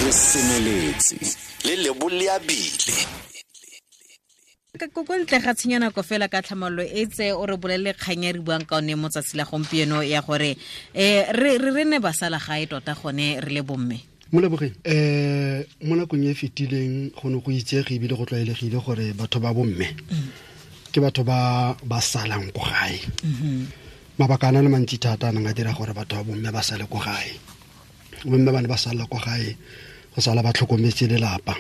Re semeletse le leboleabile. Ko ntle ga tshenyo nako fela ka tlhamallo e tse o re bolelele kgang e re buang ka one mo tsatsi la gompieno ya gore re ne ba sala gae tota gone re le bomme. Molebogeng, mo nakong e fetileng go ne go itsege ebile go tlwaelegile gore batho ba bomme ke batho ba ba salang ko gae. Mabaka a na le mantsi thata a nang a dira gore batho ba bomme ba sale ko gae. Bomme ba ne ba sala ko gae go sala ba tlhokometse lelapa.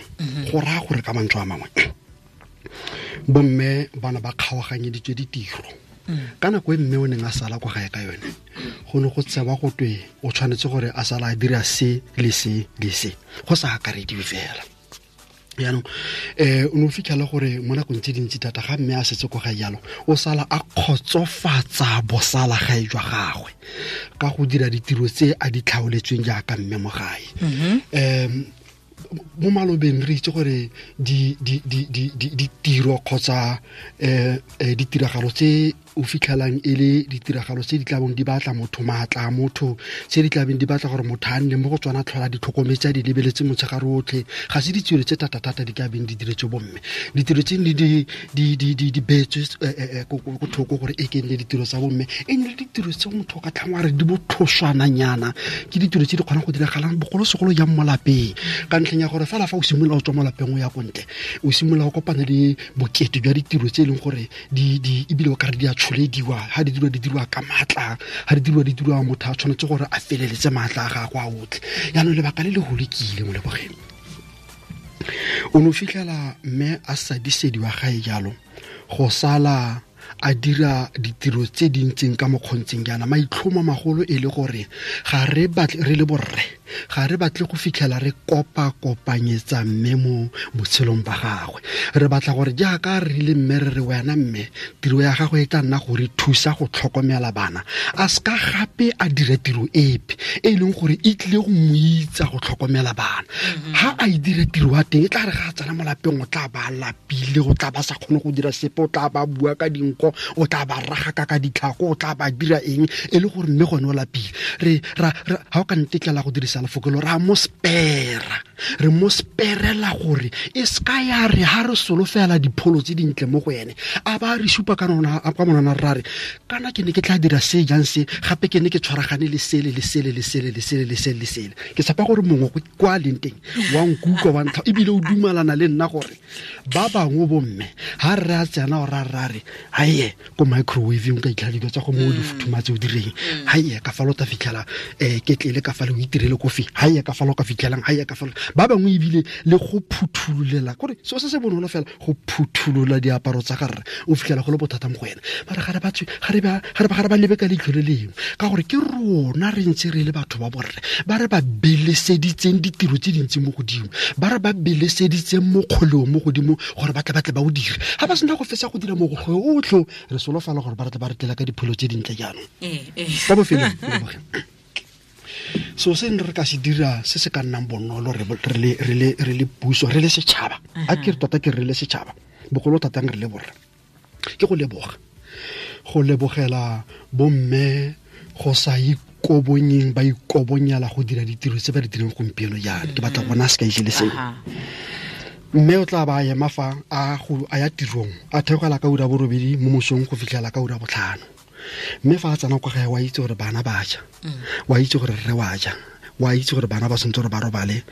Go raya gore ka mantswe a mangwe bomme ba ne ba kgaoganyeditswe ditiro. Ka nako e mme o neng a sala kwa gae ka yone, go ne go tsewa go twe o tshwanetse gore a sala a dira se le se le se, go sa akarediwe fela. Jaanong o ne o fitlhela gore mo nakong tse dintsi thata ga mme a setse kwa gae jalo, o sala a kgotsofatsa bosala gae jwa gagwe ka go dira ditiro tse a di tlhaoletsweng jaaka mme mo gae. Mo malobeng re itse gore ditiro kgotsa ditiragalo tse o fitlhelang e le ditiragalo tse di tlabong di batla motho maatla a motho, tse di tlabeng di batla gore motho a nne mo go tsona tlhola di tlhokometse a di lebeletse motshegare otlhe, ga se ditiro tse thata-thata di ka beng di diretswe bomme. Ditiro tse di beetswe ko thoko gore e ke nne ditiro tsa bomme, e nne le ditiro tse motho o ka tlhang wa re di botlhoswananyana, ke ditiro tse di kgonang go diragalang bogolosegolo jang mo lapeng, ka ntlheng ya gore fela fa o simolola o tswa mo lapeng o ya ko ntle, o simolola o kopana le bokete jwa ditiro tse e leng gore di ebile o ka re di a tsholediwa, ha di dirwa di dirwa ka maatla, ha di dirwa di dirwa motho a tshwanetse gore a feleletse maatla a gagwe a otlhe. Jaanong lebaka le le golo ke ile mo lebogeng, o ne o fitlhela mme a sadisediwa gae jalo go sala a dira ditiro tse di ntseng ka mokgontseng jaana. Maitlhomo magolo e le gore ga re batle re le borre, ga re batle go fitlhela re kopa-kopanyetsa mme mo botshelong ba gagwe. Re batla gore jaaka re rile mme re re wena mme, tiro ya gagwe e tla nna go re thusa go tlhokomela bana, a seka gape a dira tiro epe e leng gore e tlile go mo itsa go tlhokomela bana. Ha a e dira tiro ya teng, e tla re ga a tsena mo lapeng o tla ba lapile, o tla ba sa kgone go dira sepe, o tla ba bua ka dinko, o tla ba ragaka ka ditlhako, o tla ba dira eng, e le gore mme gone o lapile. Re ra ha o ka ntetlela go dirisa lefoko lo, ra mo spera, re mo sperela gore e ska ya re ha re solofela dipholo tse dintle mo go ene, a ba re supa ka nona, a kwa monana ra re kana ke ne ke tla dira se jang se, gape ke ne ke tshwaragane le sele le sele le sele le sele le sele le sele. Ke tshepa gore mongwe kwa leng teng wa nkutlwa wa ntlha, ebile o dumalana le nna gore ba bangwe bomme ha re a tsena o ra ra re haye ko microwave o ka itlhela dilo tsa go mo di futhumatse o direng, haye ka fa lo ta fitlhela ketlele ka fa le o itirele kofi, haye ka fa lo ka fitlhelang, haye ka fa lo. Ba bangwe ebile le go phuthululela gore seo se se bonolo fela go phuthulula diaparo tsa gare o fitlhela go le bothata mo go ena. Mara ga re ba tswe, ga re ba, ga re ba, ga re ba lebe ka leitlho le lengwe, ka gore ke rona re ntse re le batho ba borre ba re ba beleseditseng ditiro tse dintsi mo godimo, ba re ba beleseditseng mokgoleo mo godimo gore ba tle ba tle ba o dire. Ha ba sena go fetsa go dira mokgoleo otlhe, re solofela gore ba tle ba re tlela ka dipholo tse dintle jaanong. Kwa bofelong, so se re ka se dira se se ka nnang bonolo re le puso, re le setšhaba, a ke re tota ke re le setšhaba, bogolo thata re le borre, ke go leboga, go lebogela bomme go sa ikobonyeng, ba ikobonyela go dira ditiro tse ba di dirang gompieno jaana. Ke batla go bona sekai se le sengwe. Mme o tla ba ema fa a ya tirong, a theogela ka ura borobedi mo mosong go fitlhela ka ura botlhano. Mme fa a tsena kwa gae, wa itse gore bana ba ja, wa itse gore rre wa ja, wa itse gore bana ba santse gore ba robale,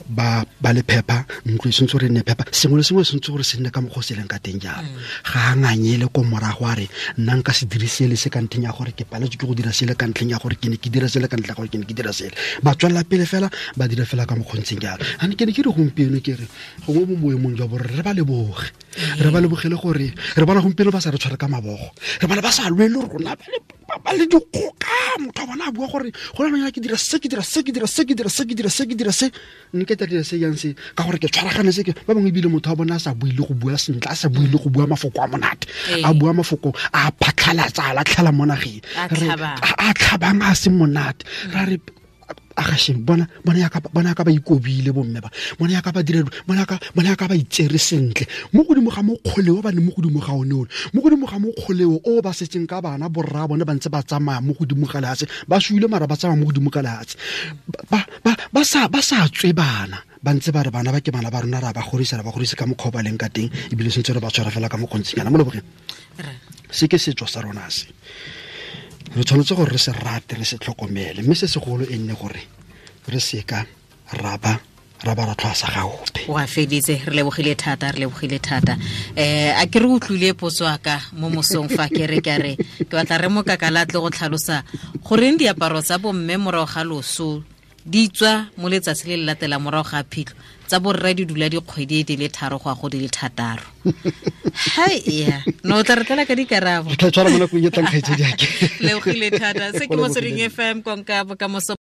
ba le phepa, ntlo e santse gore e nne phepa, sengwe le sengwe se santse gore se nne ka mokgwa o se leng ka teng jalo. Ga a nganyele ko morago a re, nna nka se dire sele se ka ntlheng ya gore ke paletswe ke go dira sele ka ntlheng ya gore ke ne ke dira sele ka ntlheng ya gore ke ne ke dira sele. Ba tswelela pele fela, ba dira fela ka mokgwa o ntseng jalo. A ne ke ne ke re gompieno ke re, gongwe mo boemong jwa borre re ba leboge. Re ba lebogele gore re bona gompieno ba sa re tshware ka mabogo, re bona ba sa lwe le rona, ba le dikgoka. Motho wa bona a bua gore go na le ke dira se, ke dira se, ke dira se, ke dira se, ke dira se, ke dira se, nne ke tla dira se jang se, ka gore ke tshwaragane se ke. Ba bangwe ebile motho wa bona a sa bue le go bua sentle, a sa bue le go bua mafoko a monate, a bua mafoko a phatlhalatsa, a latlhela mo nageng. A Re, tlhabang. a tlhabang a se monate. Ra re, a ga sheng, bona ya ka, bona ya ka ba ikobile bomme ba, bona ya ka ba dira, bona ya ka, bona ya ka ba itsere sentle. Mo godimo ga mokgoleo ba ne mo godimo ga one ole, mo godimo ga mokgoleo o ba setseng ka bana borra bone ba ntse ba tsamaya mo godimo ga lehatshe, ba suile mara ba tsamaya mo godimo ga lehatshe. Ba sa tswe bana. ba ntse ba re bana ba ke bana ba rona, ra ba godisa, ra ba godisa ka mokgwa o ba leng ka teng, ebile sentse re ba tshwara fela ka mokgontshinyana mo lebogeng. Se ke setso sa rona se, re tshwanetse gore re se rate, re se tlhokomele, mme se segolo e nne gore re seka ra ba ra tlhwasa ga ope. Wa feditse, re lebogile thata, re lebogile thata. A ke re utlwile potso aka mo mosong fa ke re ka re ke batla re mokakala tle go tlhalosa goreng diaparo tsa bomme morago ga loso di tswa mo letsatsi le le latela morago ga phitlho, tsa borre di dula dikgwedi di le 3 go ya go di le 6. Hai ya, no tla re tlela ka dikarabo. Re tla tshwara mo nakong e tlang, kgaitsedi ake. Lebogile thata. Se ke Motsweding FM, konka bokamoso.